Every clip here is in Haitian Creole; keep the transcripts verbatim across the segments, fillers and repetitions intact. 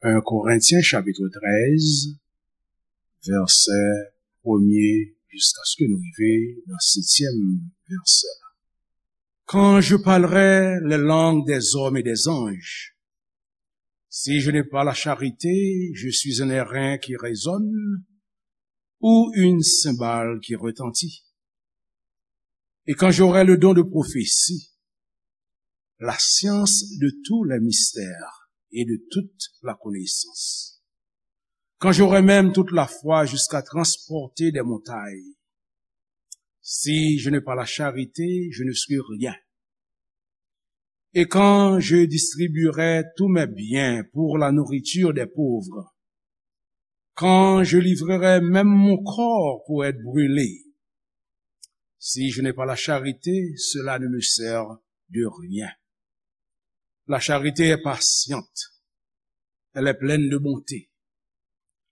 Un Corinthiens chapitre treize, vèsè premye jiskaske nou rive nan setyèm vèsè. Quand je parlerai les langues des hommes et des anges, si je n'ai pas la charité, je suis un airain qui résonne ou une cymbale qui retentit. Et quand j'aurai le don de prophétie, la science de tous les mystères et de toute la connaissance. Quand j'aurai même toute la foi jusqu'à transporter des montagnes, si je n'ai pas la charité, je ne suis rien. Et quand je distribuerai tous mes biens pour la nourriture des pauvres, quand je livrerai même mon corps pour être brûlé, si je n'ai pas la charité, cela ne me sert de rien. La charité est patiente, elle est pleine de bonté.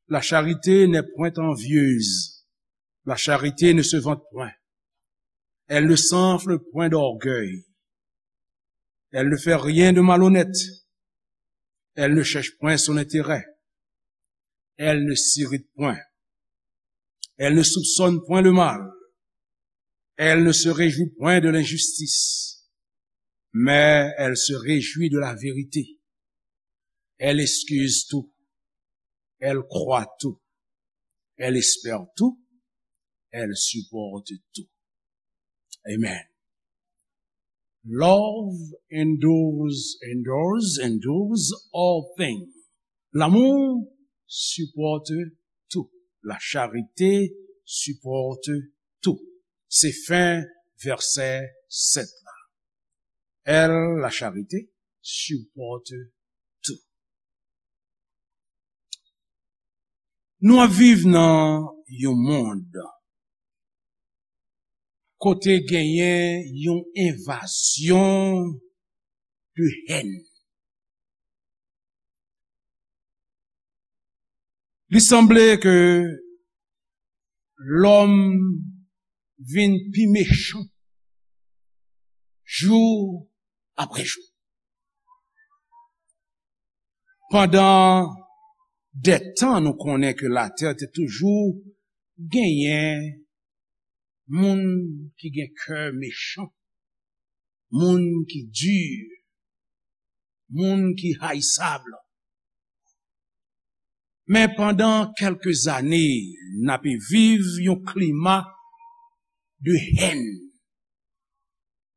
La charité n'est point envieuse, la charité ne se vante point, elle ne s'enfle point d'orgueil, elle ne fait rien de malhonnête, elle ne cherche point son intérêt, elle ne s'irrite point, elle ne soupçonne point le mal, elle ne se réjouit point de l'injustice, mais elle se réjouit de la vérité. Elle excuse tout, elle croit tout, elle espère tout, elle supporte tout. Amen. Love endures, endures, endures all things. L'amour supporte tout. La charité supporte tout. Se fen vèsè sèt la. Elle, la charité, supporte tout. Nou ap viv nan yon mond kote genyen yon envazyon de hèn. Li sanble ke lòm vin pi mechan jou apre jou. Pandan de tan, nou konnen ke latè te toujou genyen moun ki gen kè mechan, moun ki di, moun ki rayisab. Men pandan kèlke zane, n ape viv yon klima de hèn,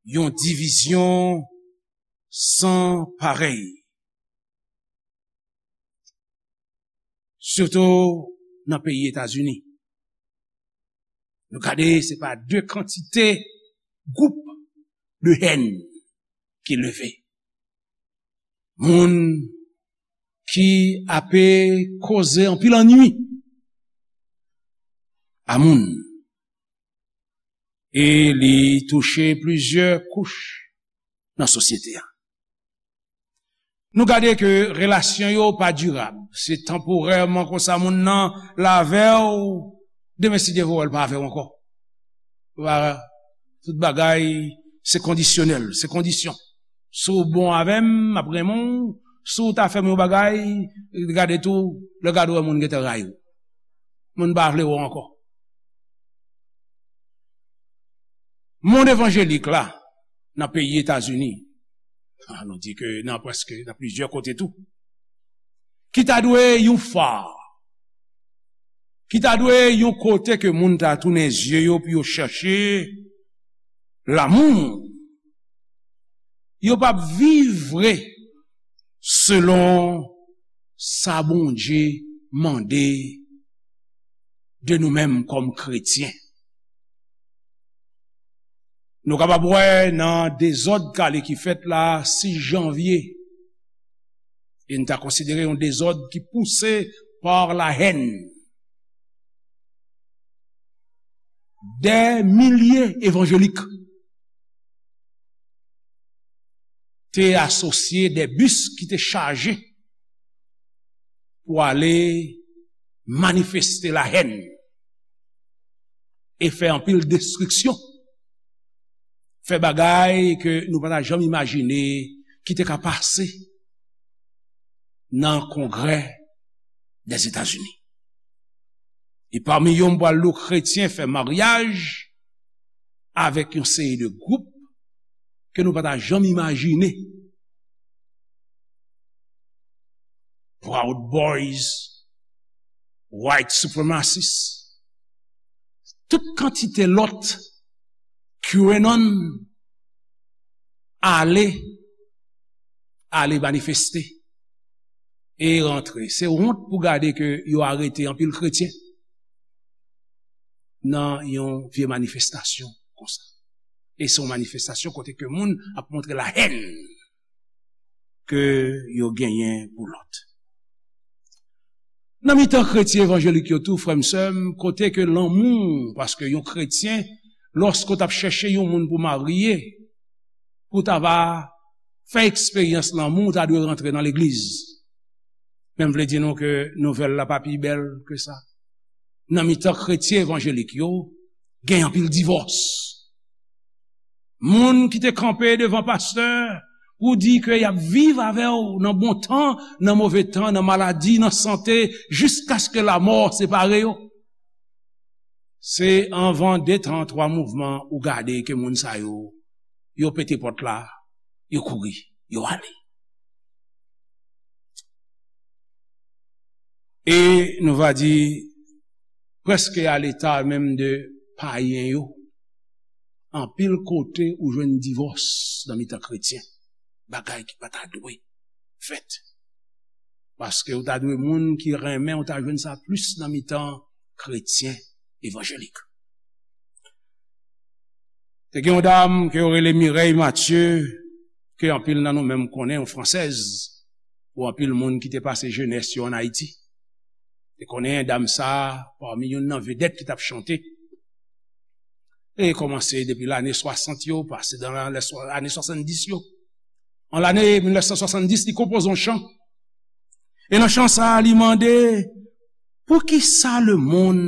yon divizyon san parèy. Sitou nan peyi Etazini. Nou gade, se pa de kantite gwoup de hèn ki leve. Moun ki ape koze anpil annwi a moun. E li touche plizyè kouch nan sosyete a. Nou gade ke relasyon yo pa dirab. Se tanporèman konsa moun nan la avè w, demen si Dye vle w pa avè w ankò. Ou pa, tout bagay se kondisyonèl, se kondisyon. Si w bon avè m, m ap renmen w. Si w ta fè m yon bagay, gade tou, lè gade w wè moun gentan rayi w. Moun pa vle wè w ankò. Mond evanjelik la, nan peyi Etazini, ah, nou di ke nan prèske, nan plizyè kote tou, ki ta dwe yon fa, ki ta dwe yon kote ke moun ta tounen zye yo pou yo chèche lanmou, yo p ap viv vre selon sa Bondye mande de nou menm kòm kretyen. Nou kapab wè nan dezòd kale ki fèt la sis janvye, e n ta konsidere yon dezòd ki pouse par la hèn. Dè milye evanjelik te asosye dè bis ki te chaje pou ale manifeste la hèn e fè anpil destriksyon, fè bagay ke nou pa ta janm imajine ki te ka pase. nan Kongrè dèzetazini. E pami yo, m pral di w, kretyen fè maryaj avèk yon seri de gwoup ke nou pa ta janm imajine. Proud Boys, white supremacists, tout kantite lòt, QAnon, ale, ale manifeste e rantre. Se wont pou gade ke yo arete anpil kretyen nan yon vye manifestasyon konsa. E se yon manifestasyon kote ke moun ap montre lahèn ke yo genyen pou lòt. Nan mitan kretyen evanjelik yo tou, frè m, sè m, kote ke lanmou, paske yon kretyen, lòske w t ap chèche yon moun pou marye, pou w ta va fè eksperyans lanmou, w ta dwe rantre nan legliz. Men m vle di nou ke nouvèl la pa pi bèl ke sa. Nan mitan kretyen evanjelik yo, gen anpil divòs. Moun ki te kanpe devan pastè pou di ke y ap viv avè w nan bon tan, nan move tan, nan maladi, nan sante, jiskaske lamò separe yo. Se anvan de tan, twa mouvman ou gade ke moun sa yo, yo pete pòt la, yo kouri, yo ale. E nou va di, prèske a leta menm de payen yo. Anpil kote ou jwenn divòs nan mitan kretyen. Bagay ki pa ta dwe fèt. Paske ou ta dwe moun ki renmen, ou ta jwenn sa plis nan mitan kretyen evanjelik. Te gen yon dam ke yo rele Mireille Mathieu, ke anpil nan nou menm konnen, yon fransèz, pou anpil moun ki te pase jenès yo ann Ayiti. Te konnen dam sa a, pami youn nan vedèt ki t ap chante. E kòmanse depi lane swasant yo, pase nan lane swa-, ane swasanndis yo. An lane mil nèf san swasanndis, li konpoze yon chan. E nan chan sa a, li mande, poukisa lemonn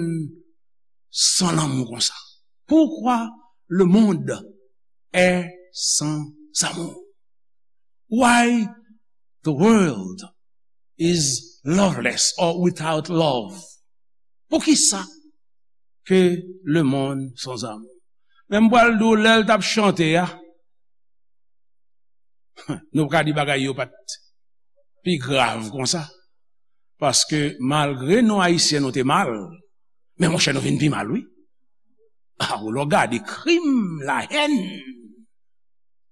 san lanmou konsa? Pourquoi le monde est sans amour? Why the world is loveless or without love? Poukisa ke lemonn san amour? Men m pral di w, lè l t ap chante a, nou ka di bagay yo pa t pi grav konsa. Paske malgre nou Ayisyen, nou te mal, men monchè, nou vin pi mal, wi. A, ou lè w gade krim, lahèn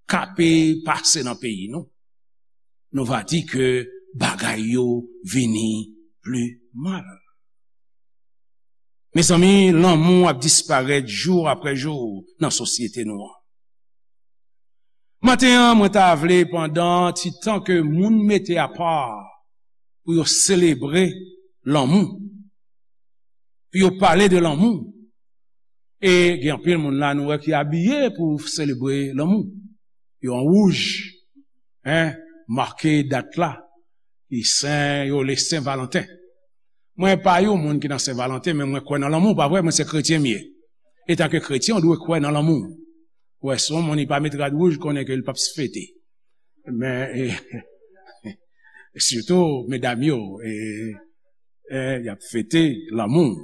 k ape pase nan peyi nou, nou va di ke bagay yo vini pli mal. Mezanmi, lanmou ap disparèt jou apre jou nan sosyete nou an. Maten an, mwen ta vle pandan ti tan ke moun mete apa pou yo selebre lanmou, pou yo pale de lanmou. E gen anpil moun la nou wè ki abiye pou selebre lanmou. Yo an wouj, en, make dat la, ki sen, yo le Sen Valanten. Mwen pa yon moun ki nan Sen Valanten, men mwen kwè nan lanmou, pa vre? Mwen se kretyen m ye. Etanke kretyen, ou dwe kwè nan lanmou. Ou wè, si yon moun li pa met rad wouj, konnen ke li p ap fete. Men, e, sitou medam yo, e, e, y ap fete lanmou.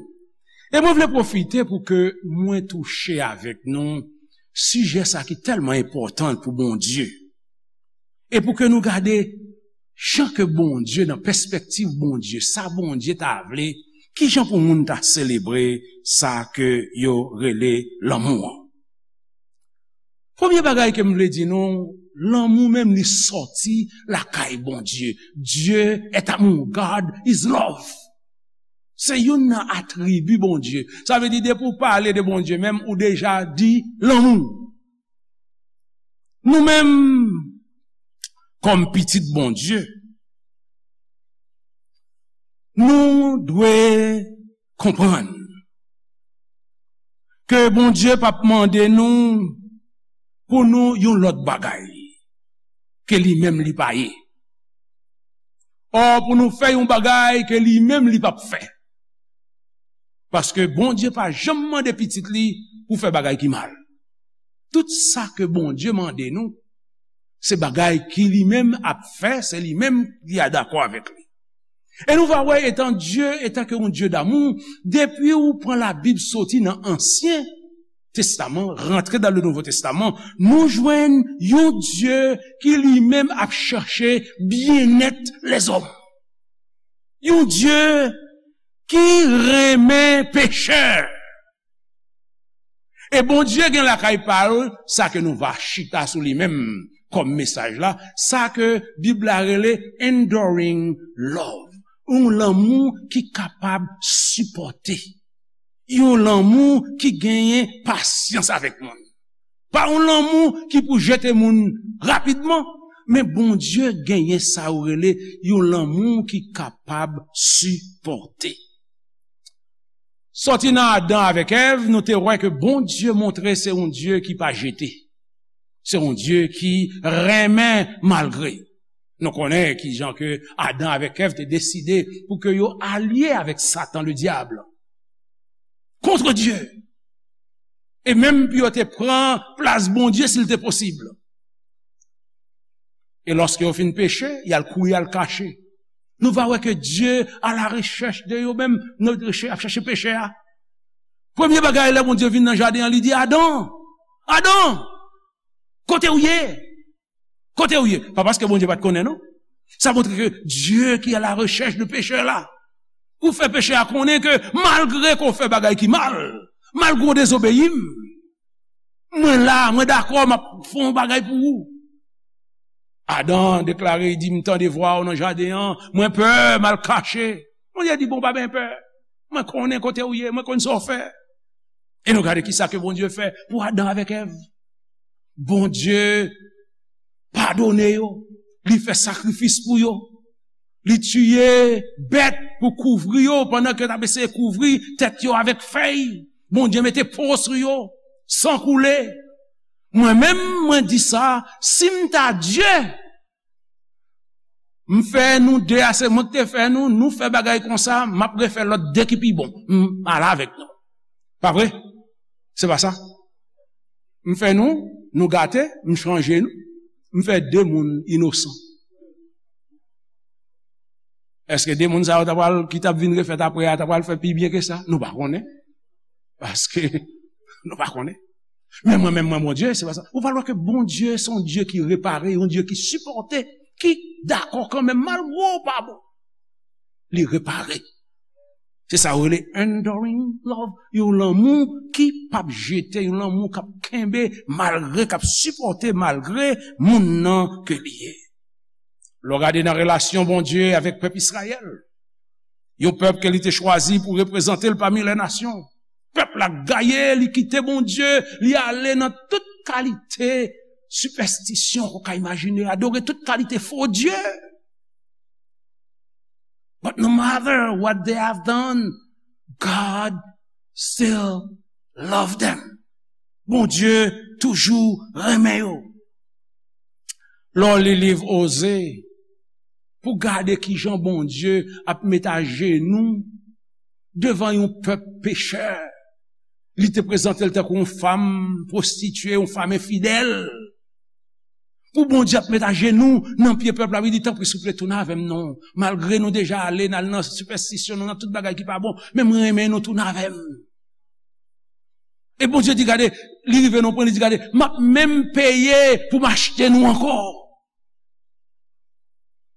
E mwen vle pwofite pou ke mwen touche avèk nou sijè sa ki tèlman enpòtan pou Bondye. E pou ke nou gade jan ke Bondye, nan pèspektiv Bondye, sa Bondye ta vle, kijan pou moun ta selebre sa ke yo rele lanmou an. Premye bagay ke m vle di nou, lanmou menm li sòti lakay Bondye. Dieu est amour. God is love. Se youn nan atribi Bondye. Sa vle di, depi w pale de Bondye menm, ou deja di lanmou. Nou menm, kòm pitit Bondye, nou dwe konprann ke Bondye p ap mande nou pou nou yon lòt bagay ke li menm li pa ye. Ò, pou nou fè yon bagay ke li menm li p ap fè. Paske Bondye pa janm mande pitit li pou fè bagay ki mal. Tout sa ke Bondye mande nou, Se bagay ki li menm ap fè, se li menm ki a dakò avèk li. E nou va wè, etan Dye, etan ke yon Dye damou, depi ou pran Labib soti nan Ansyen Testaman, rantre dan le Nouvo Testaman, nou jwenn yon Dye ki li menm ap chache byennèt lèzòm. Yon Dye ki renmen pechè. E Bondye gen lakay pa l, sa ke nou va chita sou li menm kòm mesaj la, sa ke Bib la rele enduring love. Yon lanmou ki kapab sipòte. Yon lanmou ki genyen pasyans avèk moun. Pa yon lanmou ki pou jete moun rapidman, men Bondye genyen sa yo rele yon lanmou ki kapab sipòte. Sòti nan Adan avèk Èv, nou te wè ke Bondye montre se yon Dye ki pa jete. Se yon Dye ki renmen malgre. Nou konnen kijan ke Adan avèk Èv te deside pou ke yo alye avèk Satan, le dyab, contre Dieu. E menm pou yo te pran plas Bondye si l te posib. E lòske yo fin peche, y al kouri, y al kache. Nou va wè ke Dye a la rechèch de yo menm, nan reche-, ap chache pechè a. Premye bagay, lè Bondye vin nan jaden an, li di, Adan, Adan, kote w ye? Kote w ye? Pa paske Bondye pa t konnen, non. Sa montre ke Dye ki a la rechèch de pechè la. Ou fè pechè a konnen ke malgre ke w fè bagay ki mal, malgre w dezobeyi m, mwen la, mwen dakò, m ap fè yon bagay pou ou. Adan deklare, li di, m tande vwa w nan jaden an, mwen pè, m al kache. Bondye di, bon, pa byen pè. Mwen konnen kote w ye, mwen konn sa w fè. E nou gade kisa ke Bondye fè pou Adan avèk Èv. Bondye padone yo, li fè sakrifis pou yo. Li tiye bèt pou kouvri yo pandan ke yo t ap eseye kouvri tèt yo avèk fèy. Bondye mete po sou yo, san koule. Mwen menm, mwen di sa, si m ta Dye, m fè nou de a, se mwen ki te fè nou, nou fè bagay konsa, m ap refè lòt de ki pi bon. M ale avèk nou. Pa vre? Se pa sa? M fè nou, nou gate, m chanje nou, m fè de moun inosan. Èske de moun sa yo ta pral, ki t ap vin refèt apre a, ta pral fè pi byen ke sa? Nou pa konnen. Paske nou pa konnen. Men mwen menm, mwen, Bondye, se pa sa. Ou pral wè ke Bondye se yon Dye ki repare, yon Dye ki sipòte, ki dakò kanmenm, malgre w pa bon. Li repare. Se sa yo rele enduring love, yon lanmou ki p ap jete, yon lanmou k ap kenbe malgre, k ap sipòte malgre moun nan ke li ye. Lè w gade nan relasyon Bondye avèk pèp Izrayèl, yon pèp ke li te chwazi pou reprezante l pami lè nasyon. Pèp la gaye, li kite Bondye, li ale nan tout kalite sipèstisyon ke w ka imajine, adore tout kalite fo dye. But no matter what they have done, God still love them. Bondye toujou renmen yo. Lè w li liv Oze, pou gade kijan Bondye ap met ajenou devan yon pèp pechè. Li te prezante l tankou yon fanm pwostitye, yon fanm enfidèl. Pou Bondye ap met ajenou nan pye pèp la, li di, tanpri, souple, tounen avè m non. Malgre nou deja ale, n al nan sipèstisyon, nou nan tout bagay ki pa bon, men mwen renmen nou, tounen avè m. E Bondye di, gade, li rive nan pwen, li di, gade, m ap menm peye pou m achte nou ankò.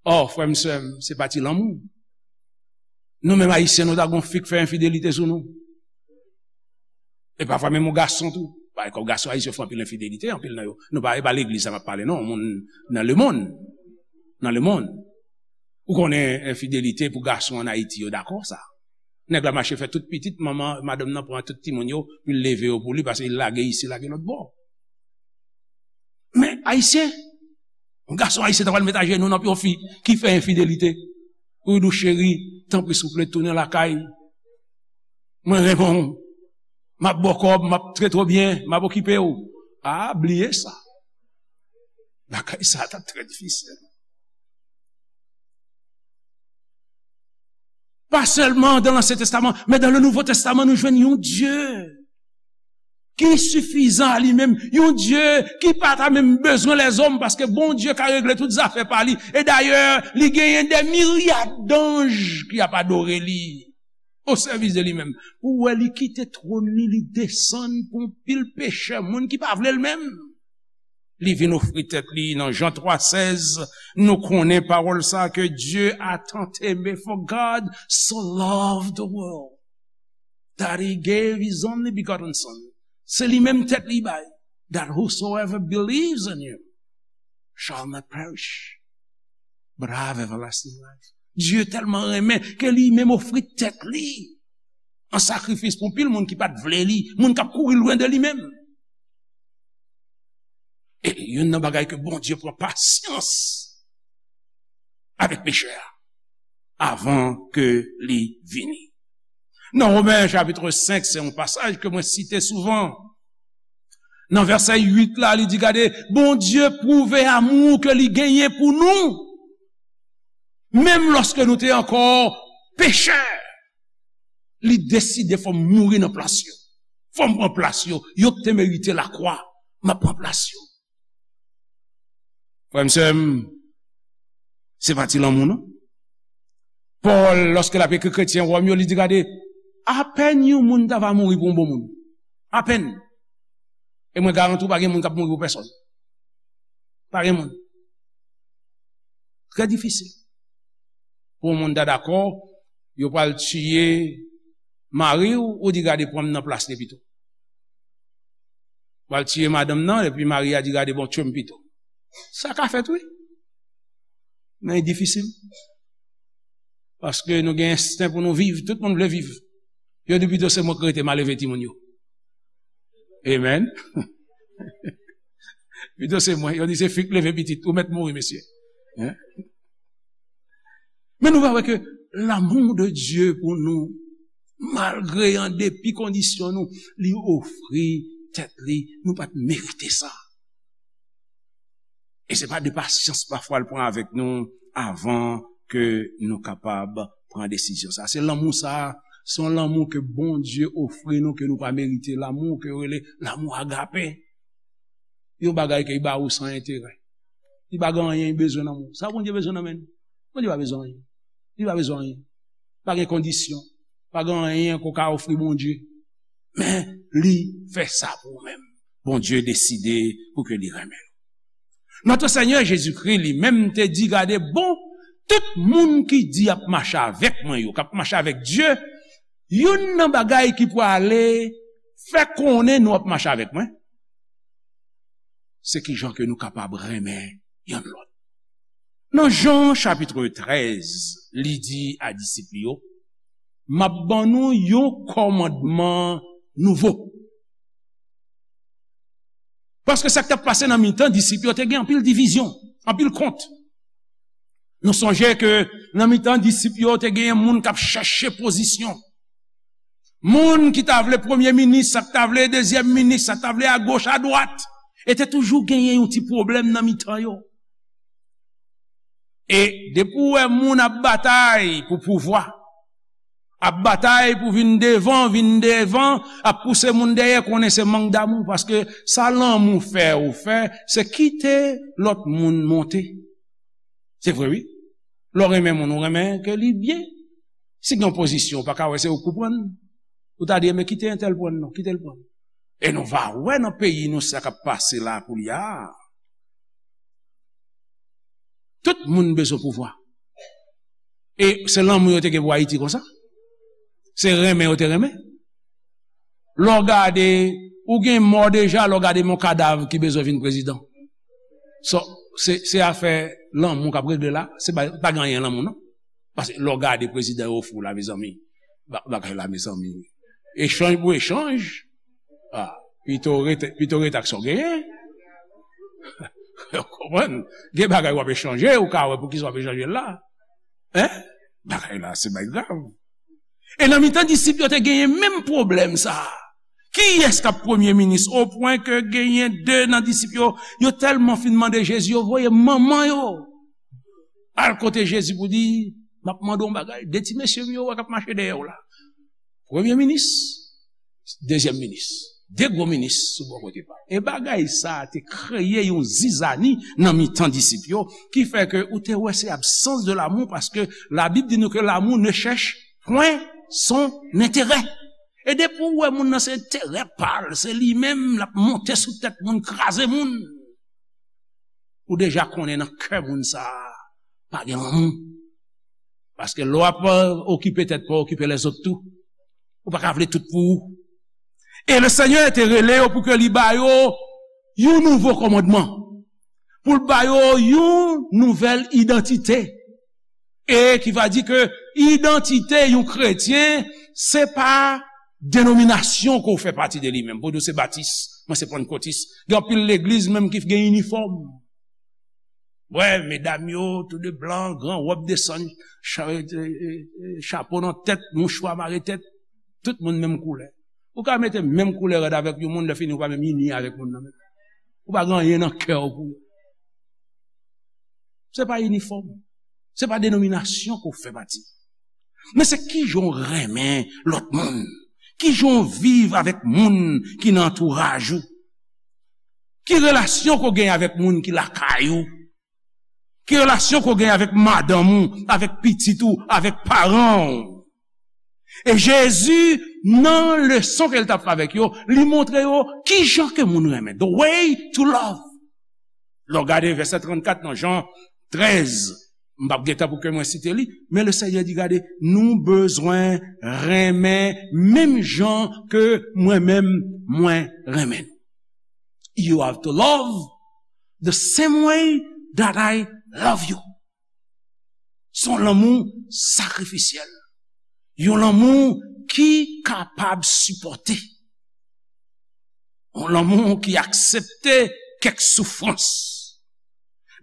Oh, frè m, sè m, se pa ti lanmou. Nou menm Ayisyen, nou ta gon fi k fè enfidelite sou nou. E pafwa menm yon gason tou. Paske gason Ayisyen fè anpil enfidelite, anpil nan yo. Nou pa, e pa legliz sa m ap pale, non, moun nan lemonn. Nan lemonn. Ou konnen enfidelite pou gason ann Ayiti, yo dakò sa. Nèg la mache fè tout pitit, manman, madanm nan pran tout timoun yo, pou l leve yo pou li, paske l lage isi, lage lòt bò. Men Ayisyen, yon gason Ayisyen ta pral met ajenou nan pye yon fi ki fè enfidelite. Pou l di w, cheri, tanpri, souple, tounen lakay. Mwen renmen w. M ap ba w kòb, m ap trete w byen, m ap okipe w. A, bliye sa. Bagay sa t ap trè difisil. Pa sèlman dan Lansyen Testaman, men dan le Nouvo Testaman, nou jwenn yon Dye ki sifizan a li menm, yon Dye ki pa ta menm bezwen lèzòm, paske Bondye ka regle tout zafè pa li. E dayè, li genyen de miryad danj ki ap adore li, o sèvis de li menm. Ou wè, li kite twòn li, li desann pou yon pil pechè, moun ki pa vle l menm. Li vin ofri tèt li nan Jan twa sèz. Nou konnen pawòl sa ke Dieu a tant aimé, for God so loved the world that he gave his only begotten Son. Se li menm tèt li bay. That whosoever believes in him shall not perish, but have everlasting life. Dye tèlman renmen ke li menm ofri tèt li an sakrifis pou pil moun ki pa t vle li, moun k ap kouri lwen de li menm. E youn nan bagay ke Bondye pran pasyans avèk pechè a avan ke li vini. Nan Women chapit senk, se yon pasaj ke mwen site souvan. Nan vèsè uit la, li di, gade, Bondye pwouve amou ke li genyen pou nou. Menm lòske nou te ankò pechè, li deside fò m mouri nan plas yo. Fò m pran plas yo. Yo ki te merite lakwa, m ap pran plas yo. Frè m, sè m, se pa ti lanmou, non. Pòl, lòske l ap ekri kretyen Wòm yo, li di, gade, apèn yon moun ta va mouri pou yon bon moun. Apèn. E mwen garanti w, pa gen moun k ap mouri pou pèsòn. Pa gen moun. Trè difisil pou yon moun ta dakò, yo pral tiye mari w, ou di, gade, pran m nan plas li pito. Pral tiye madanm nan, epi mari a di, gade, bon, tiye m pito. Sa ka fèt, wi. Men e difisil. Paske nou gen ensten pou nou viv. Tout moun vle viv. Yo di, pito se mwen k rete, m a leve timoun yo. Amen. Pito se mwen. Yo di, se fi k leve pitit. Ou mèt mouri, mesye. Hein? Men nou va wè ke l'amour de Dieu pou nou, malgre, an depi kondisyon nou, li ofri tèt li, nou pa t merite sa. E se pa de pasyans pafwa l pran avèk nou avan ke nou kapab pran desizyon sa. Se lanmou sa, se yon lanmou ke Bondye ofri nou, ke nou pa merite, lanmou ke yo rele lanmou agape. Yon bagay ke li ba ou san enterè. Li pa gen anyen li bezwen nan men w. Sa Bondye bezwen nan men nou? Bondye pa bezwen anyen. Li pa bezwen anyen. Pa gen kondisyon. Pa gen anyen ke w ka ofri Bondye. Men li fè sa pou ou menm. Bondye deside pou ke li renmen nou. Notre Seigneur Jésus-Christ li menm te di, gade, bon, tout moun ki di y ap mache avèk mwen yo, k ap mache avèk Dye, youn nan bagay ki prale fè konnen nou ap mache avèk mwen, se kijan ke nou kapab renmen yonn lòt. Nan Jan chapit trèz, li di a disip li yo, m ap ban nou yon kòmandman nouvo. Paske sa k t ap pase nan mitan disip yo te gen anpil divizyon, anpil kont. Nou sonje ke nan mitan disip yo te gen moun k ap chèche pozisyon. Moun ki ta vle premye minis, sa k ta vle dezyèm minis, sa k ta vle agoch, adwat. E te toujou genyen yon ti pwoblèm nan mitan yo. E depi w wè moun ap batay pou pouvwa, ap batay pou vin devan, vin devan, ap pouse moun dèyè, konnen se mank damou, paske sa lanmou fè ou fè, se kite lòt moun monte. Se vre, wi. Lè w renmen moun, ou renmen ke li byen. Si gen yon pozisyon, ou pa ka wè se ou k pou pran l. Ou ta di, men kite entèl pran l non, kite l pran l. E nou va wè nan peyi nou sa k ap pase la koulye a. Tout moun bezwen pouvwa. E se lanmou yo te gen pou Ayiti konsa. Se renmen yo te renmen. Lè w gade, ou gen mò deja, lè w gade yon kadav ki bezwen vin prezidan. So, se, se afè lanmou k ap regle la, se pa, pa gen anyen lanmou non. Paske lè w gade prezidan yo fou la, mezanmi. Ba-, bagay la, mezanmi. Echanj pou echanj. Ah, pito rete, pito rete ak sa w genyen. Ou konprann? Gen bagay w ap echanje, ou ka wè poukisa w ap echanje l la. Hein? Bagay la, se bagay grav. E nan mitan disip yo te genyen menm pwoblèm sa a. Kiyès k ap premye minis? O pwen ke genyen de nan disip yo, yo tèlman fin mande Jezi, yo voye manman yo al kote Jezi pou di, m ap mande w yon bagay. De ti mesye m yo wè k ap mache dèyè w la. Premye minis, dezyèm minis. De gwo minis sou bò kote pa w. E bagay sa a te kreye yon zizani nan mitan disip yo, ki fè ke ou te wè se absans de l'amour, paske Labib di nou ke l'amour ne cherche point son intérêt. E depi w wè moun nan se enterè pa l, se li menm l ap monte sou tèt moun, kraze moun, ou deja konnen nan kè moun sa a pa gen lanmou. Paske lè w ap, euh, okipe tèt pa w, okipe lèzòt tou. Ou pa ka vle tout pou ou. E le Senyè te rele yo pou ke li ba yo yon nouvo kòmandman. Pou l ba yo yon nouvèl idantite. E ki va di ke idantite yon kretyen, se pa denominasyon ke w fè pati de li menm. Pou di w se batis, mwen se pannkotis. Gen anpil legliz menm ki gen inifòm. Wè, medam yo, tou de blan, gran wòb desann, cha-, e, e, e, chapo nan tèt, mouchwa mare tèt, tout moun menm koulè. Ou ka mete menm koulè rad avèk yon moun, lè fini ou pa menm ini avèk moun nan menm. Ou pa gen anyen nan kè w pou yo. Se pa inifòm. Se pa denominasyon ke w fè pati. Men se kijan w renmen lòt moun. Kijan w viv avèk moun ki nan antouraj ou. Ki relasyon ke w gen avèk moun ki lakay ou. Ki relasyon ke w gen avèk madanm ou, avèk pitit ou, avèk paran w. E Jezi, nan leson ke l t ap fè avèk yo, li montre yo kijan ke moun renmen. The way to love. Lè w gade vèsè trannkat nan Jan trèz, m p ap gen tan pou ke mwen site li, men le Senyè di, gade, nou bezwen renmen menm jan ke mwen menm, mwen renmen nou. You have to love the same way that I love you. Se yon lanmou sakrifisyèl. Yon lanmou ki kapab sipòte. Yon lanmou ki aksepte kèk soufrans.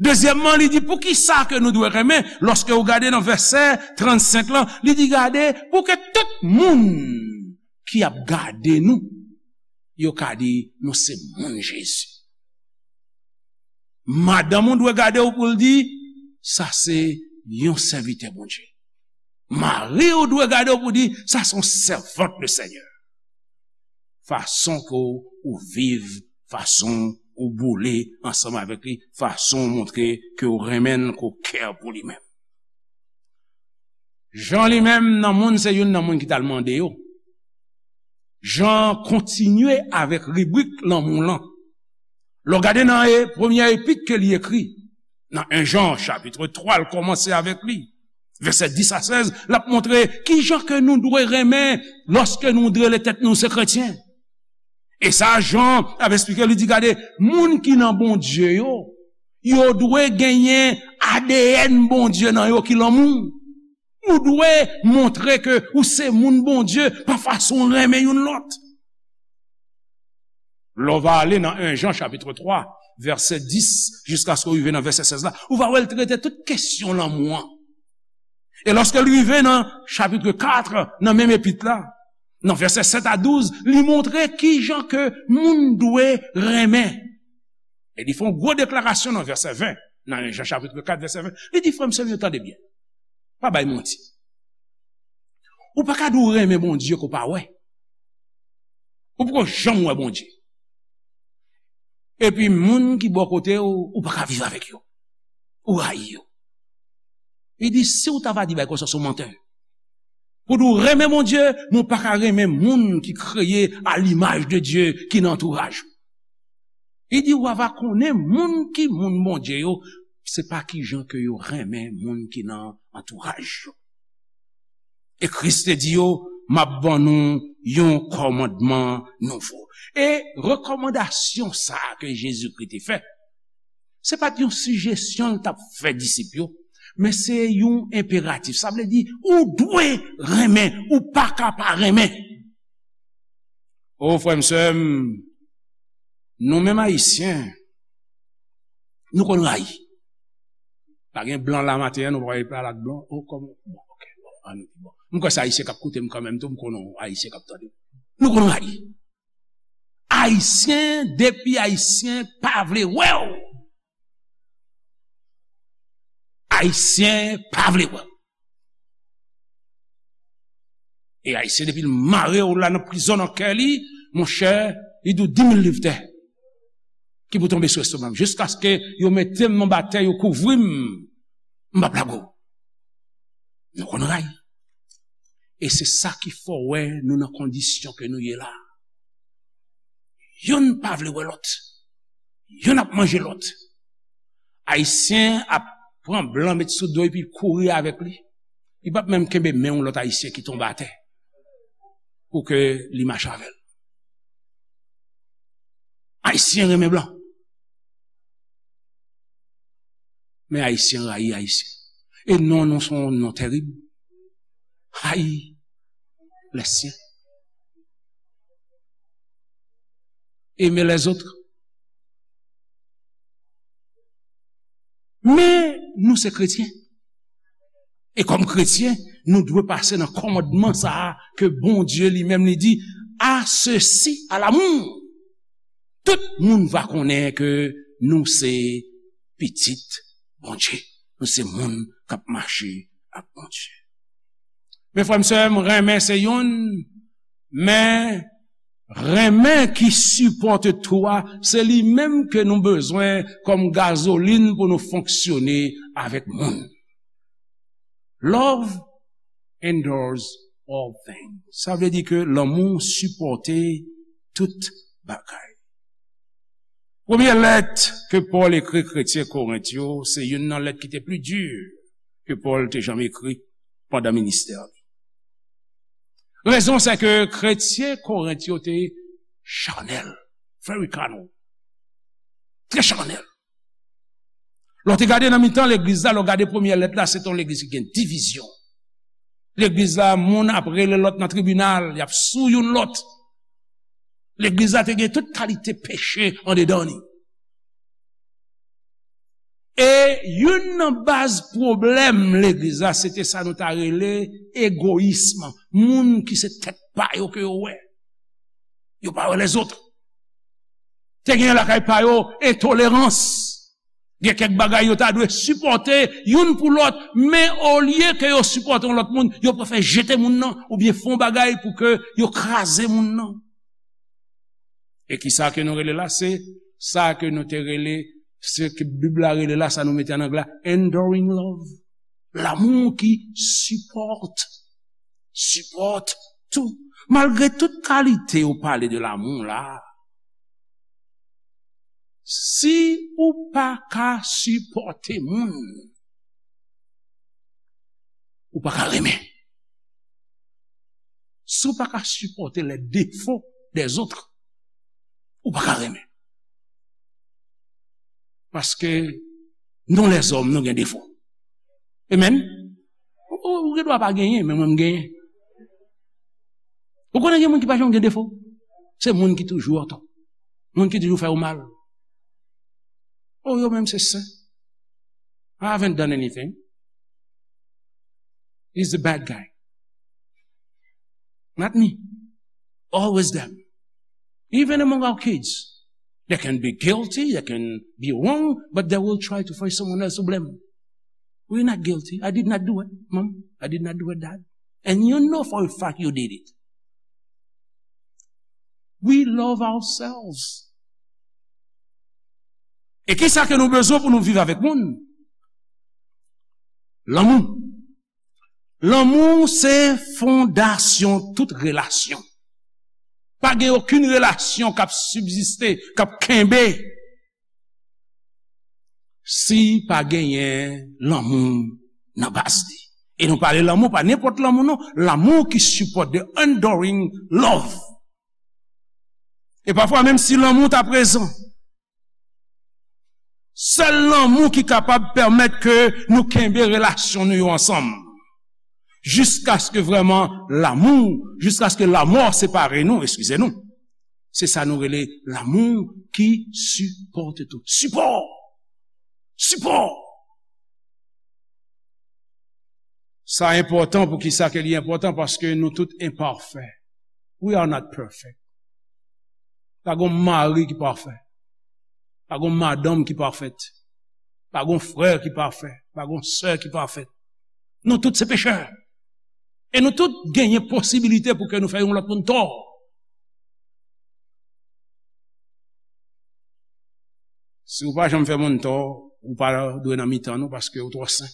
Dezyèmman, li di, poukisa ke nou dwe renmen? Lòske ou gade nan vèsè trannsenk lan, li di, gade, pou ke tout moun ki ap gade nou, yo ka di, nou se moun Jezi. Madanm ou dwe gade w pou l di, sa se yon sèvitè Bondye. Mari ou dwe gade w pou di, sa se yon sèvant le Senyè. Fason ke w, ou viv, fason ou boule ansanm avèk li, fason ou montre ke w renmen l, ke w kè pou li menm. Jan li menm nan moun, se youn nan moun ki t al mande yo. Jan kontinye avèk ribrik lanmou lan. Lè w gade nan e, premyè epit ke li ekri, nan en Jan, chapit twa, l kòmanse avèk li. Vèsè dis a sèz, l ap montre kijan ke nou dwe renmen lòske nou dwe rele tèt nou se kretyen. E sa, Jan ap esplike, li di, gade, moun ki nan Bondye yo, yo dwe genyen A D N Bondye nan yo ki lanmou. Ou dwe montre ke ou se moun Bondye pa fason w renmen youn lòt. Lè w va ale nan en Jan chapit twa, vèsè dis, jiskaske w rive nan vèsè sèz la, ou va wè l trete tout kesyon lanmou an. E lòske l rive nan chapit kat, nan menm epit la, nan vèsè sèt a douz, li montre kijan ke moun dwe renmen. E li fè yon gwo deklarasyon nan vèsè ven, nan en Jan chapit kat, vèsè ven. Li di, frè m, sè m yo, tande byen. Pa bay manti. Ou pa ka di w renmen Bondye ke w pa wè. Ou poko janm wè Bondye. Epi moun ki bò kote w, ou pa ka viv avèk yo. Ou rayi yo. Li di, si w ta va di bagay konsa, se yon mantè. Pou di w renmen Bondye, men w pa ka renmen moun ki kreye à l'image de Dieu ki nan antouraj ou. Li di, w a va konnen moun ki moun Bondye yo, se pa kijan ke yo renmen moun ki nan antouraj yo. E Kris te di yo, m ap ban nou yon kòmandman nouvo. E rekòmandasyon sa a ke Jezikri te fè, se pa t yon sijesyon l t ap fè disip yo, men se yon enperatif. Sa vle di, ou dwe renmen, ou pa ka pa renmen. O, frè m, sè m, nou menm Ayisyen, nou konn rayi. Pa gen blan la maten an, nou pa pale ak blan. O, kòman? Bon, ok, bon, ann, bon. M kwè se Ayisyen k ap koute m kanmenm tou, m konnen Ayisyen k ap tande m. Nou konn rayi. Ayisyen, depi Ayisyen pa vle wè w, Ayisyen pa vle wè w. E Ayisyen, depi l mare w la nan prizon nan kè li, monchè, Li di w dis mil liv tè ki pou tonbe sou estoma m. Jiskaske yo mete m anba tè, yo kouvri m, m p ap lage w. Nou konn ray. E se sa ki fè w wè nou nan kondisyon ke nou ye la. Youn pa vle wè lòt. Youn ap manje lòt. Ayisyen ap pran blan met sou do epi kouri avèk li. Li p ap menm kenbe men yon lòt Ayisyen ki tonbe atè pou ke li mache avè l. Ayisyen renmen blan. Men Ayisyen rayi Ayisyen. E non nou se yon non tèrib. Haï les siens. Aimer les autres. Men nou se kretyen. E kòm kretyen, nou dwe pase nan kòmandman sa a ke Bondye li menm li di, à ceci, à l'amour. Tout moun va konnen ke nou se pitit Bondye. Nou se moun k ap mache ak Bondye. Men frè m, sè m, renmen se youn, men renmen ki sipòte tou a, se li menm ke nou bezwen kòm gazolin pou nou fonksyone avèk moun. Love endures all things. Sa vle di ke lanmou sipòte tout bagay. Premye lèt ke Pòl ekri kretyen Korent yo, se youn nan lèt ki te pli di ke Pòl te janm ekri pandan ministè li. Rezon se ke kretyen Korent yo te chanèl, very carnal, trè chanèl. Lè w te gade nan mitan legliz la, lè w gade premyè lèt la, se te yon legliz ki gen divizyon. Legliz la, moun ap rele lòt nan tribinal, y ap sou youn lòt. Legliz la te gen tout kalite peche andedan li. E youn nan baz pwoblèm legliz la, se te sa nou ta rele egoyism. Moun ki se tèt pa yo ke yo wè. Yo pa wè lèzòt. Te gen lakay pa yo entolerans. Gen kèk bagay yo ta dwe sipòte youn pou lòt, men olye ke yo sipòte yon lòt moun, yo prefere jete moun nan oubyen fè yon bagay pou ke yo kraze moun nan. E ki sa ke nou rele la? Se sa ke nou te rele, se ke Bib la rele la, sa nou mete an anglè, enduring love. Lanmou ki sipòte, sipòte tou. Malgre tout kalite yo pale de lanmou la, si ou pa ka sipòte moun, ou pa ka renmen. Si w pa ka sipòte les défauts des autres, ou pa ka renmen. Paske nou lèzòm, nou gen defo. Amen. Ou, ou, ou gen dwa pa genyen, men mwen m genyen. Ou konnen gen moun ki pa janm gen defo? Se moun ki toujou atò. Moun ki toujou fè w mal. Oh, yo menm se sen. I haven't done anything. He's the bad guy. Not me. Always them. Even among our kids, they can be guilty, they can be wrong, but they will try to find someone else to blame. We're not guilty. I did not do it, Mom. I did not do it, Dad. And you know for a fact you did it. We love ourselves. E ki sa ke nou bezwen pou nou viv avèk moun? Lanmou. Lanmou se fondasyon tout relasyon. Pa gen okenn relasyon k ap sibziste, k ap kenbe, si pa genyen lanmou nan baz li. E nou pale lanmou, pa nenpòt lanmou non, lanmou ki sipòte, the enduring love. E pafwa, menm si lanmou ta prezan, sèl lanmou ki kapab pèmèt ke nou kenbe relasyon nou yo ansanm. Jiskaske vrèman lanmou, jiskaske lanmò separe nou, eskize nou. Se sa nou rele lanmou ki sipòte tout. Sipò! Sipò! Sa enpòtan, poukisa ke li enpòtan? Paske nou tout enpafè. We are not perfect. Pa gon mari ki pafè. Pa gon madanm ki pafèt. Pa gon frè ki pafè. Pa gon sè ki pafèt. Nou tout se pechè. E nou tout genyen posibilite pou ke nou fè yon lòt moun tò. Si w pa janm fè moun tò, ou pa dwe nan mitan nou paske ou twò sen.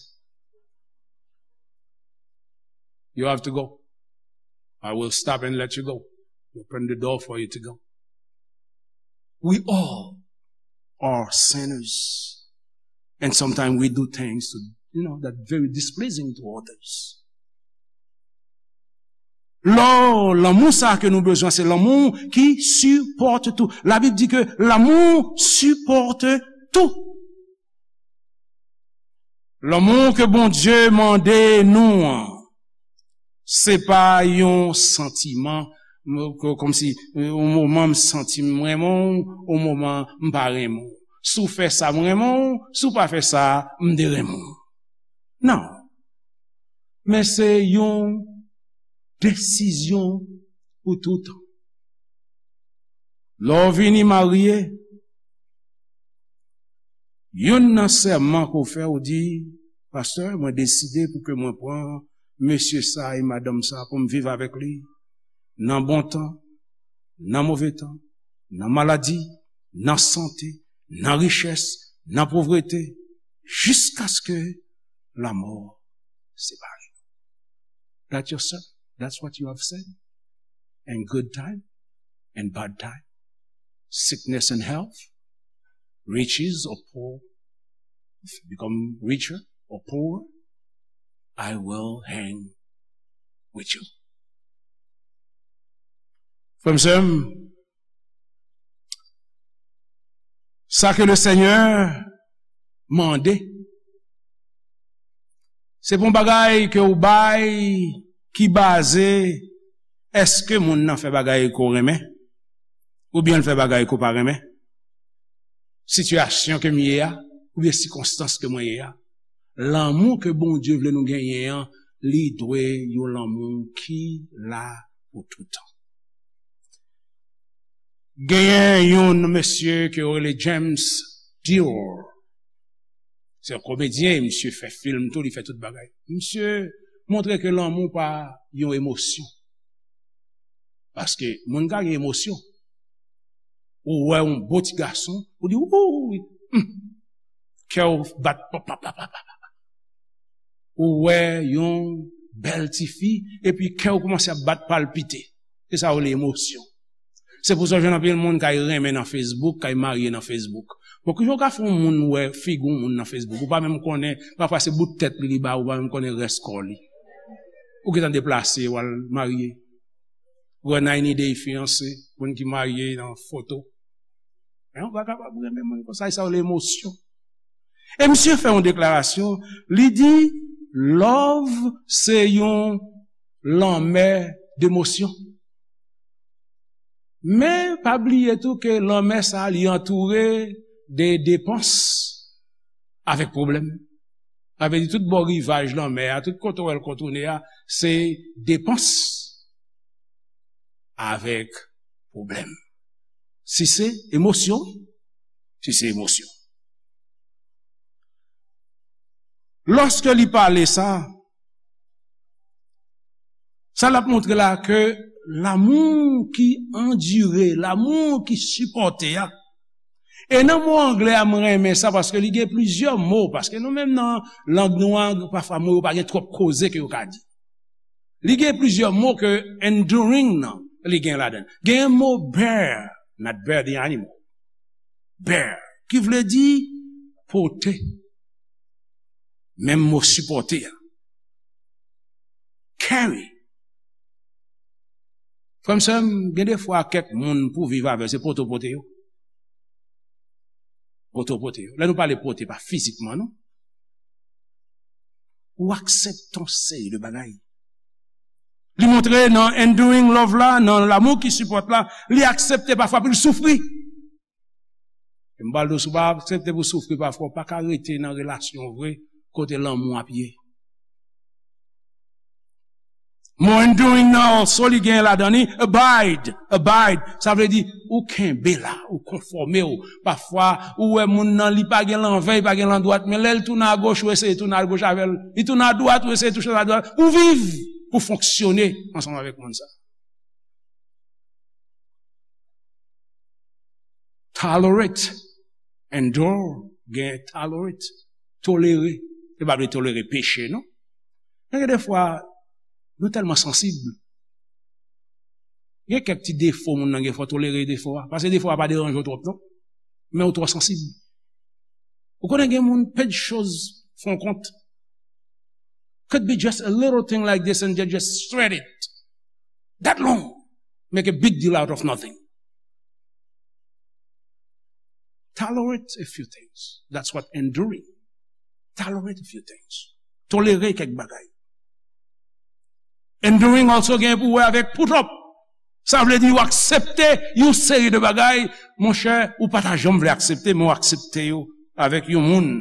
You have to go. I will stop and let you go. Open the door for you to go. We all are sinners. And sometimes we do things to, you know, that very displeasing to others. Lò, lanmou sa ke nou bezwen, se lanmou ki sipòte tou. Labib di ke lanmou sipòte tou. Lanmou ke Bondye mande nou an, se pa yon santiman, m, ko-, kòmsi, yon moman m santi m renmen w, yon moman m pa renmen w. Si w fè sa, m renmen w, si w pa fè sa, m derenmen w. Non. Men se yon desizyon pou toutan. Lè w vini marye, youn nan sèman ke w fè, ou di, "Pastè, mwen deside pou ke mwen pran mesye sa e madanm sa pou m viv avèk li nan bon tan, nan move tan, nan maladi, nan sante, nan richès, nan povrete, jiskaske lanmò separe nou." That's your sermon. That's what you have said. And good time and bad time, sickness and health, riches or poor, become richer or poorer, I will hang with you. Frè m, sè m, sa ke le Senyè mande, se pa yon bagay ke w bay ki baze èske moun nan fè bagay ke w renmen, oubyen l fè bagay ke w pa renmen, sitiyasyon ke m ye a, oubyen sikonstans ke mwen ye a. Lanmou ke Bondye vle nou genyen an, li dwe yon lanmou ki la pou toutan. Genyen yon mesye ke yo rele James Deore. Se yon komedyen, misye fè fim tou, li fè tout bagay. Misye montre ke lanmou pa yon emosyon. Paske moun ka gen emosyon. Ou wè yon bo ti gason, ou di, "Wouy!" Hmm. Kè w bat, pa, pa, pa. Ou wè yon bèl ti fi, epi kè w kòmanse ap bat, palpite. Se sa yo rele emosyon. Se pou sa w jwenn anpil moun kay renmen nan Facebook, kay marye nan Facebook. Bon, kijan w ka fè yon moun wè figi yon moun nan Facebook? Ou pa menm konnen, pafwa se bout tèt li li ba ou, ou pa menm konnen rès kò li. Ou gentan deplase, w al marye. Ou wè ninety day fiyanse, moun ki marye nan foto. Men w pa kapab renmen moun konsa, e sa yo rele emosyon. E misye fè yon deklarasyon, li di, "Love se yon lanmè demosyon." Men pa bliye tou ke lanmè sa a, li antoure de depans avèk pwoblèm. Sa vle di tout bò rivaj lanmè a, tout kote w wè l kontounen a, se depans avèk pwoblèm. Si se emosyon, si se emosyon. Lòske li pale sa, sa l ap montre la ke lanmou ki andire, lanmou ki sipòte a. E nan mo anglè a, mwen renmen sa paske li gen plizyè mo, paske nou menm nan lang nou an, pafwa mo yo pa gen twòp koze ke yo ka di. Li gen plizyè mo ke enduring nan, li gen ladan. Gen mo bear, not bear the animal. Bear, ki vle di pote. Menm mo sipòte a. Carry. Frè m, sè m, gen de fwa kèk moun pou viv avè, se pote w pote yo. Pote w pote yo. Lè nou pale pote, pa fizikman, non. Ou aksepte yon seri de bagay. Li montre nan enduring love la, nan lanmou ki sipòte la, li aksepte pafwa pou l soufri. E m pral di w, si w pa aksepte pou soufri pafwa, w pa ka rete nan relasyon vre kote lanmou ap ye. Mo enduring nan also li gen ladan li abide, abide. Sa vle di ou kenbe la, ou konfòme w. Pafwa, ou wè moun nan li pa gen landwat, li pa gen landwat, men lè l tounen agoch, ou eseye tounen agoch avè l. Li tounen adwat, ou eseye tounen adwat. Ou viv pou fonksyone ansanm avèk moun sa. Tolerate. Endure, gen tolerate, tolere. E pa vle tolere peche, non. Men gen defwa, nou tèlman sansib. Gen kèk ti defo moun nan gen, fò w tolere defo a. Paske defo a pa deranje w twòp, non. Men ou twò sansib. Ou konnen gen moun, pe de choz fè w kont. Could be just a little thing like this and they just shred it. That long. Make a big deal out of nothing. Tolerate a few things. That's what enduring. Tolerate a few things. Tolere kèk bagay. Enduring also gen pou wè avèk put up. Sa vle di ou aksepte yon seri de bagay, monchè, ou pa ta janm vle aksepte, men ou aksepte yo avèk yon moun.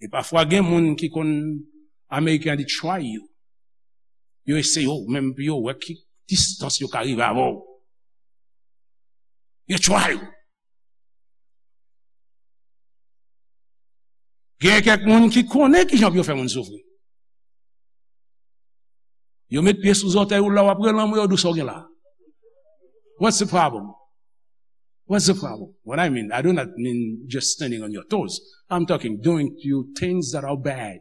E pafwa gen moun ki konn, Ameriken an di try you. Yo eseye w, menm pou yo wè ki distans yo ka rive avè w. Yo try you. Gen kèk moun ki konnen ki jan pou yo fè moun soufri. Yo met pye sou zòtèy ou la, w ap rele anmwe, yo di w sa w gen la. What's the problem? What's the problem? What I mean, I do not mean just standing on your toes. I'm talking doing you things that are bad.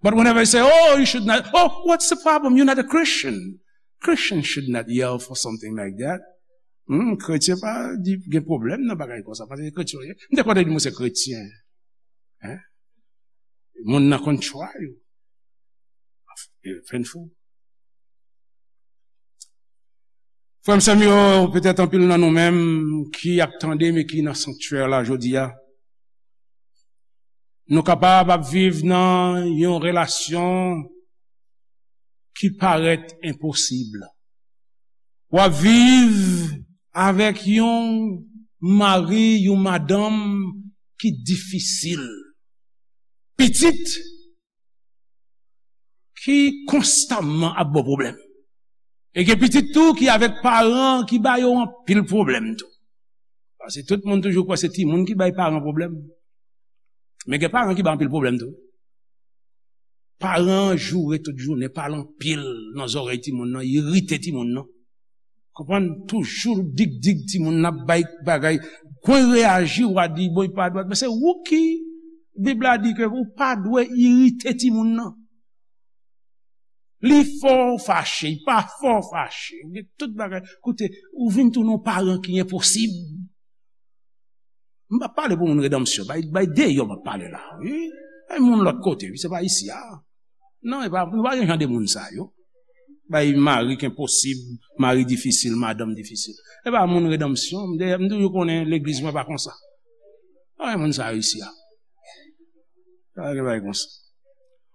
But whenever I say, oh, you should not, oh, what's the problem? You're not a Christian. Christian should not yell for something like that. Hmm, kretyen pa di gen pwoblèm nan bagay konsa, paske kretyen w ye. M te kontan di moun se kretyen. Hein? Moun nan konn try ou. Painful. Frè m, sè m yo, petèt anpil nan nou menm ki ap tande m e ki nan sanktyè la jodi a, nou kapab ap viv nan yon relasyon ki parèt enposib. W ap viv avèk yon mari, yon madanm ki difisil. Pitit ki konstamman ap ba w pwoblèm. E gen pitit tou ki avèk paran ki ba yo anpil pwoblèm tou. Paske tout moun toujou kwè se timoun ki bay paran pwoblèm. Men gen paran ki bay anpil pwoblèm tou. Paran an joure tout jounen, pale anpil nan zòrèy timoun nan, irite timoun nan. Konprann? Toujou dig dig timoun nan, ap bay bagay. Kon l reyaji, w a di, bon, li pa dwèt. Men se ou ki, Bib la di ke ou pa dwe irite timoun nan. Li fè w fache, li pa fè w fache. Ou gen tout bagay. Koute, ou vin tounen yon paran ki enposib. M p ap pale pou moun redanmsyon. Bay, bay deyò m ap pale la, wi. Bay moun lòt kote, wi. Se pa isi a. Non, e pa, nou pa gen jan de moun sa yo. Bay mari ki enposib, mari difisil, madanm difisil. E pa moun redanmsyon. M de, m toujou konnen legliz mwen pa konsa. Pa gen moun sa yo isi a. Pa gen bagay konsa.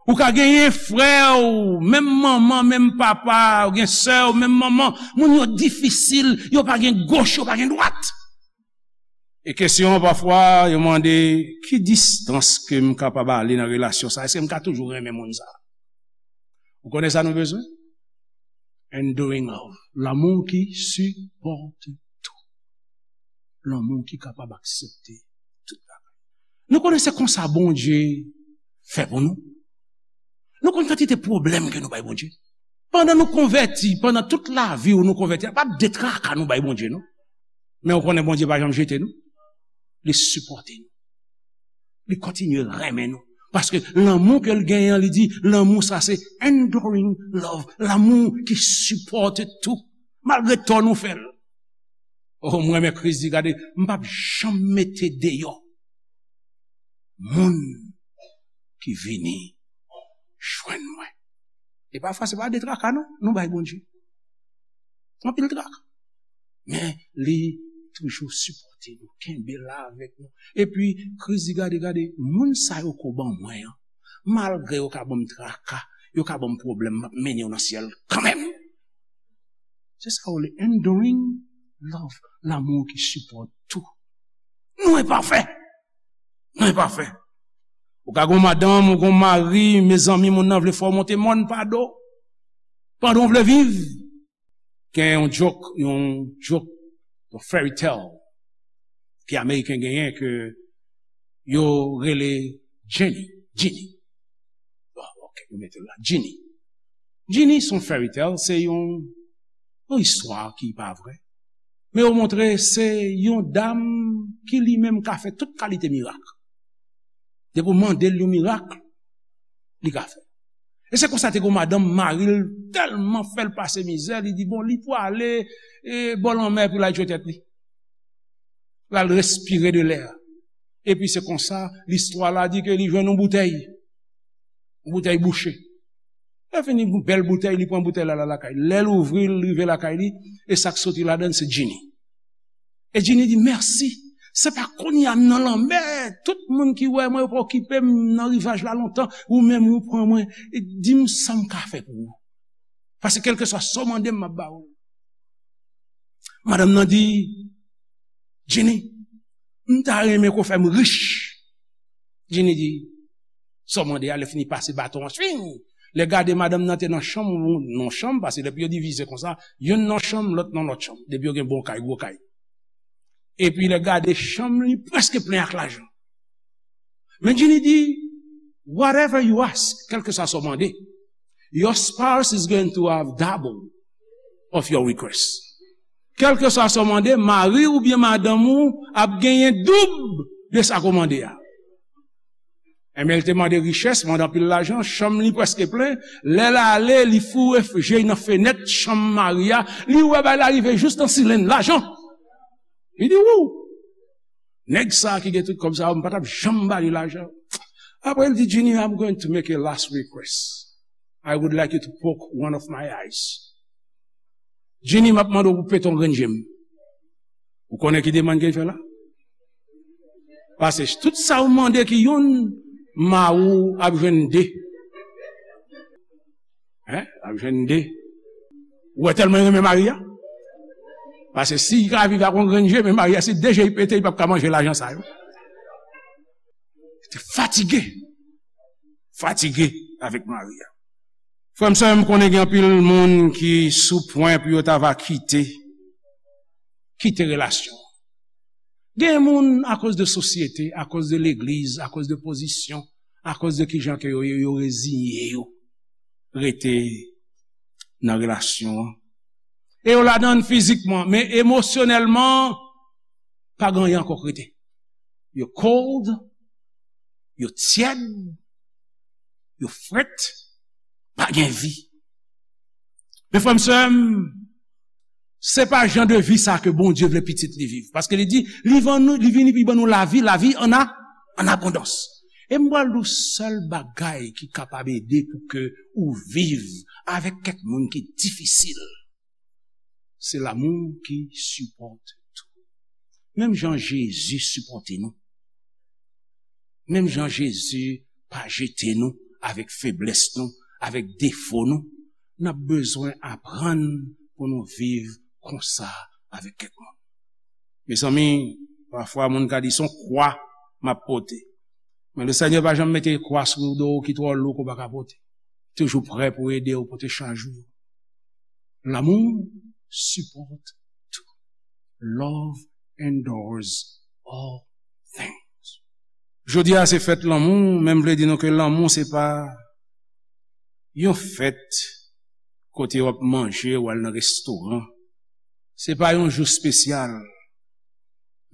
Ou ka genyen frè w, menm manman, menm papa, ou gen sè w, menm manman. Moun yo difisil, yo pa gen goch, yo pa gen dwat. E kesyon an pafwa, yo mande, ki distans ke m kapab ale nan relasyon sa? Èske m ka toujou renmen moun sa? Ou konnen sa nou bezwen? Enduring love. Lanmou ki sipòte tou. Lanmou ki kapab aksepte tout bagay. Nou konnen se konsa Bondye fè pou nou. Nou konn kantite pwoblèm ke nou bay Bondye. Pandan nou konvèti, pandan tout lavi w nou konvèti, a pa de traka nou bay Bondye, non. Men ou konnen Bondye pa janm jete nou. Li sipòte nou. Li kontinye renmen nou. Paske lanmou ke l genyen an, li di, lanmou sa se enduring love, lanmou ki sipòte tou, malgre tò nou fè l. Oh, m renmen Kris di, gade, m p ap janm mete deyò moun ki vini jwenn mwen. E pafwa, se pa de traka, non, nou bay Bondye. Anpil traka. Men li toujou sipòte nou, kenbe la avèk nou. Epi, Kris di, gade, gade, moun sa yo ko ban mwen an, malgre yo ka ban m traka, yo ka ban m pwoblèm, m ap mennen yo nan syèl kanmenm. Se sa yo rele enduring love, lanmou ki sipòte tou. Nou enpafè. Nou enpafè. Ou ka gon madanm, ou gon mari, mezanmi, moun nan vle fè w monte mòn pa do. Pandan w vle viv. Gen yon joke, yon joke, yon fairy tale ki Ameriken genyen ke yo rele Jenny, Ginny. Bon, ok, yo mete l la, Ginny. Ginny se yon fairy tale, se yon, yon istwa ki pa vrè. Men yo montre se yon dam ki li menm ka fè tout kalite mirak. Depi w mande l yon mirak, li ka fè. E se konsa te gen yon madanm, mari l tèlman fè l pase mizè, li di, bon, li pwale, e, bò lanmè pou l al jwe tèt li. L al respire de lè. Epi se konsa, listwa la di ke li jwenn yon boutèy. Yon boutèy bouche. Lè fini, yon bèl boutèy, li pran boutèy la, la lakay. Lè l ouvri l, rive lakay li, e sa k soti ladan l, se Djini. E Djini di, mèsi. Se pa kounye a m nan lanmè. Tout moun ki wè mwen, yo pa okipe m nan rivaj la lontan. Ou menm, ou pran mwen. E di m sa m ka fè pou ou. Paske kèlkeswa sa w mande m, m ap ba ou. Madanm nan di, Djini, m ta renmen ke w fè m rich. Djini di, sa w mande a, lè fini pase baton an, swing. Lè gade madanm nan te nan chanm, nan chanm, paske depi yo divize konsa, youn nan chanm, lòt nan lòt chanm. Depi yo gen bon kay, gwo kay. Epi lè gade chanm li prèske plen ak lajan. Men Djini di, whatever you ask, kèlkeswa sa w mande, your spouse is going to have double of your request. Kèlkeswa sa w mande, mari oubyen madanm ou ap genyen doub de sa ke w mande a. Enben, l te mande richès, mande anpil lajan, chanm li prèske plen. Lè l ale, li foure je l nan fenèt chanm mari a, li wè bagay la rive jis nan silenn, lajan. Li di, wou! Nèg sa ki gen tout kòb sa yo, m pa t ap janm ba li lajan. Apre, l di, Junior, I'm going to make a last request. I would like you to poke one of my eyes. Junior, m ap mande w pou pete yon grenn je m. Ou konnen ki demann ke l fè la? Paske tout sa ou mande ki youn, mari w ap jwenn de. Hein? Ap jwenn de. Ou wè tèlman l renmen mari a? Paske si l ka viv ak yon grenn je, men mari a, se de je l pete, li p ap ka manje lajan sa yo. Li te fatige. Fatige avèk mari a. Frè m, sè m, m konnen gen anpil moun ki sou pwen pou yo ta va kite, kite relasyon. Gen moun, akoz de sosyete, akoz de legliz, akoz de pozisyon, akoz de kijan ke yo ye, yo reziye yo rete nan relasyon an. E yo ladan l fizikman, men emosyonèlman, pa gen anyen ankò k rete. Yo cold, yo tyèd, yo frèt, pa gen vi. Men frè m, sè m, se pa jan de vi sa ke Bondye vle pitit li viv. Paske li di, li ban nou, li vini pou li ban nou lavi, lavi an a, an abondans. E m pral di w sèl bagay ki kapab ede pou ke ou viv avèk kèk moun ki difisil. Se lanmou ki sipòte tou. Menm jan Jezi sipòte nou, menm jan Jezi pa jete nou avèk feblès nou, avèk defo nou, n ap bezwen aprann pou nou viv konsa avèk kèk moun. Mezanmi, pafwa moun ka di, se yon kwa m ap pote. Men Lesenyè pa janm mete kwa sou do w ki twò lou ke w pa ka pote. Toujou prè pou ede w pote chaj ou yo. L'amour supporte tout. Love endures all things. Jodi a se fèt lanmou, men m vle di nou ke lanmou se pa yon fèt kote w ap manje, w al nan restoran. Se pa yon jou espesyal,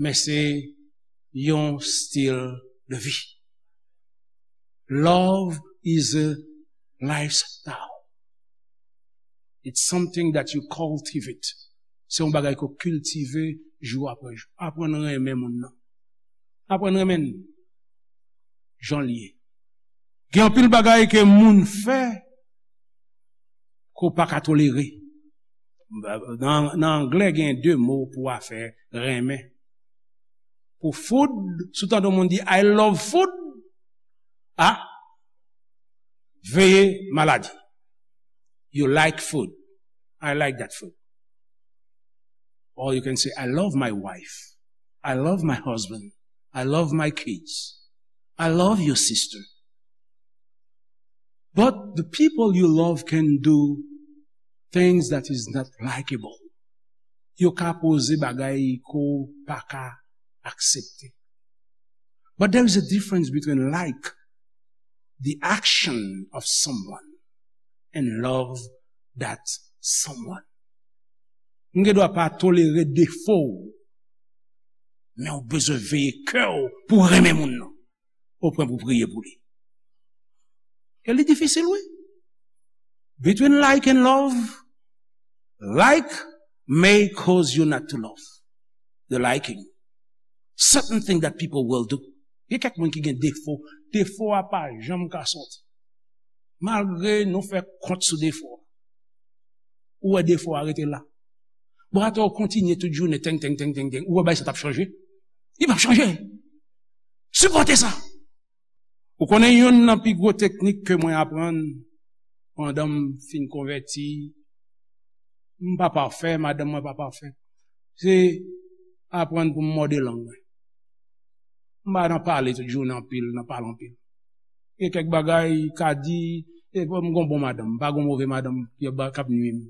men se yon stil de vi. Love is a lifestyle. It's something that you cultivate. Se yon bagay ke w kiltive jou apre jou. Aprann renmen moun nan. Aprann renmen l jan l ye. Gen anpil bagay ke moun fè ke w pa ka tolere. Nan, nan anglè, gen de mo pou afè renmen. Pou food, si w tande yon moun di, I love food, a, veye maladi. You like food. I like that food. Or you can say, I love my wife. I love my husband. I love my kids. I love your sister. But the people you love can do things that is not likable. Yo ka poze bagay ke w pa ka aksepte. But there is a difference between like, the action of someone, and love that someone. M gen dwa pa tolere defo w, Men ou bezwen veye kè w pou w renmen moun nan. O pwen pou w priye pou li. E li difisil, wi. Between like and love, like may cause you not to love the liking. Certain thing that people will do. Gen kèk moun ki gen defo. Defo a pa janm ka sòti. Malgre nou fè kont sou defo a. Ou wè defo a rete la. Bon, atò w kontinye tout jounen, teng, teng, teng, teng, teng. Ou wè bagay sa t ap chanje? Li p ap chanje. Sipòte sa. Ou konnen youn nan pi gwo teknik ke mwen aprann pandan m fin konvèti, m pa pafè, madanm mwen pa pafè. Se aprann pou m mòde lang mwen. M pa nan pale tout jounen anpil, nan pale anpil. Gen kèk bagay ka di, e m gon bon madanm, m pa gon move madanm ki ap ba-, k ap nwi m.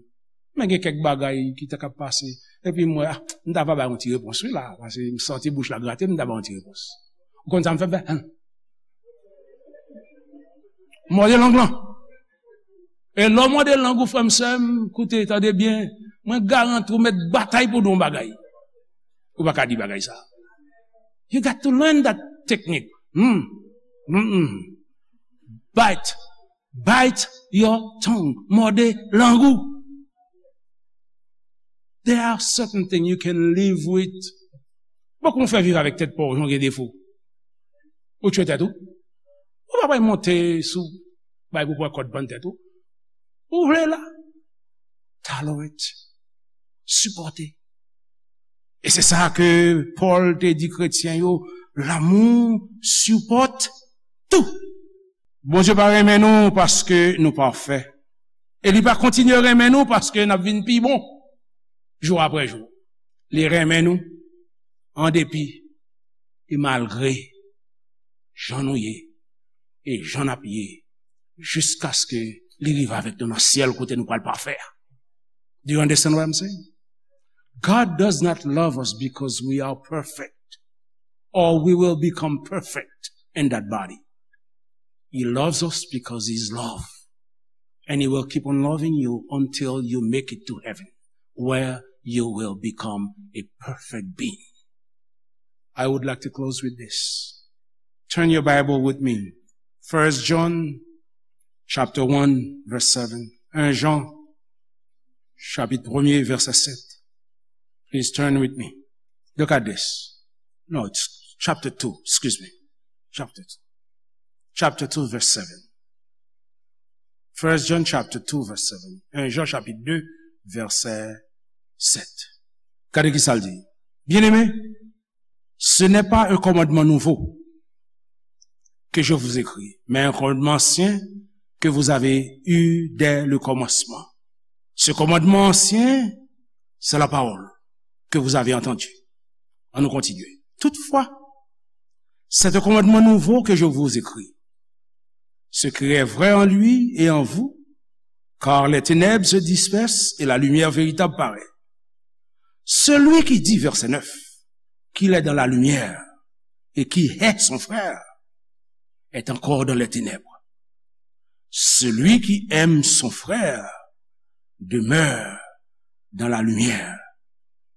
Men gen kèk bagay ki ta ka pase. Epi m wè, ah, m ta va bay yon ti repons wi la, paske m santi bouch la grate m, m ta ba yon ti repons. Ou konn sa m fè, m fè, hen. Mòde lang lan. E lè w mòde lang ou, frè m, sè m, koute, tande byen, mwen garanti w mèt batay pou di yon bagay. Ou pa ka di bagay sa. You got to learn that technique. Hmm. Hmm, hmm. Bite. Bite your tongue. Mòde lang ou. There are certain things you can live with. Bon, kòman w fè viv avèk tèt pa w, jan w gen defo? Ou tchwe tèt ou? Ou pa pral monte sou bay pou pran kòd pann tèt ou? Ou vle la? Tolerate. Sipòte. E se sa ke Pòl te di kretyen yo, l'amour supporte tout. Bondye pa renmen nou paske nou pafè. E li pa kontinye renmen nou paske n ap vin pi bon jou apre jou. Li renmen nou an depi e malgre jan nou ye e jan n ap ye, jiskaske li rive avèk nou nan syèl kote nou pral pafè a. Do you understand what I'm saying? God does not love us because we are perfect or we will become perfect in that body. He loves us because He's love. And He will keep on loving you until you make it to heaven, where you will become a perfect being. I would like to close with this. Turn your Bible with me. First John chapter one, verse seven. Un Jean, chapitre premier, verset sept. Please turn with me. Look at this. No, it's chapter two, excuse me. Chapter two. Chapter two, verse seven. First John chapter two, verse seven. Un Jean chapitre deux, verset sept. Gade ki sa l di. Bien-aimés, ce n'est pas un commandement nouveau que je vous écris, mais un commandement ancien que vous avez eu dès le commencement. Ce commandement ancien, c'est la parole que vous avez entendue. Ann nou kontinye. Toutefois, c'est un commandement nouveau que je vous écris, ce qui est vrai en lui et en vous, car les ténèbres se dispersent et la lumière véritable paraît. Celui qui dit, verset neuf, qu'il est dans la lumière et qui hait son frère est encore dans les ténèbres. Celui qui aime son frère demeure dans la lumière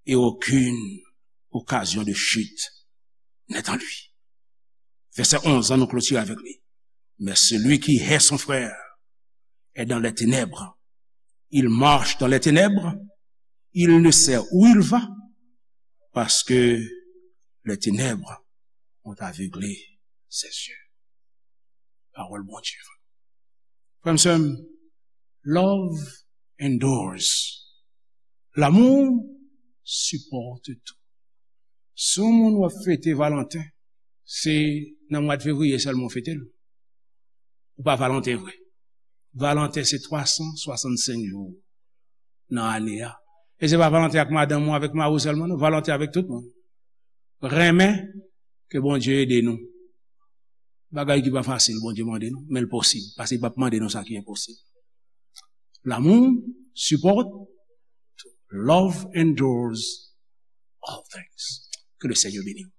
et aucune occasion de chute n'est en lui. Verset onze, ann nou klotire avèk li. Mais celui qui hait son frère est dans les ténèbres. Il marche dans les ténèbres, il ne sait où il va, parce que les ténèbres ont aveuglé ses yeux. Pawòl Bondye. Frè m, sè m, love endures. L'amour supporte tout. Si yon moun w ap fete Valanten, se nan mwa de fevriye sèlman w fete l. Ou pa Valanten vre. Valanten se twa san swasannsenk jou nan ane a. E se pa Valanten ak madanm ou, avèk mari w sèlman, non. Valanten avèk tout moun. Renmen, ke Bondye ede nou. Bagay ki pa fasil, Bondye mande nou, men l posib, paske li p ap mande nou sa ki enposib. L'amour supporte, love endures all things. Que le Seigneur bénisse.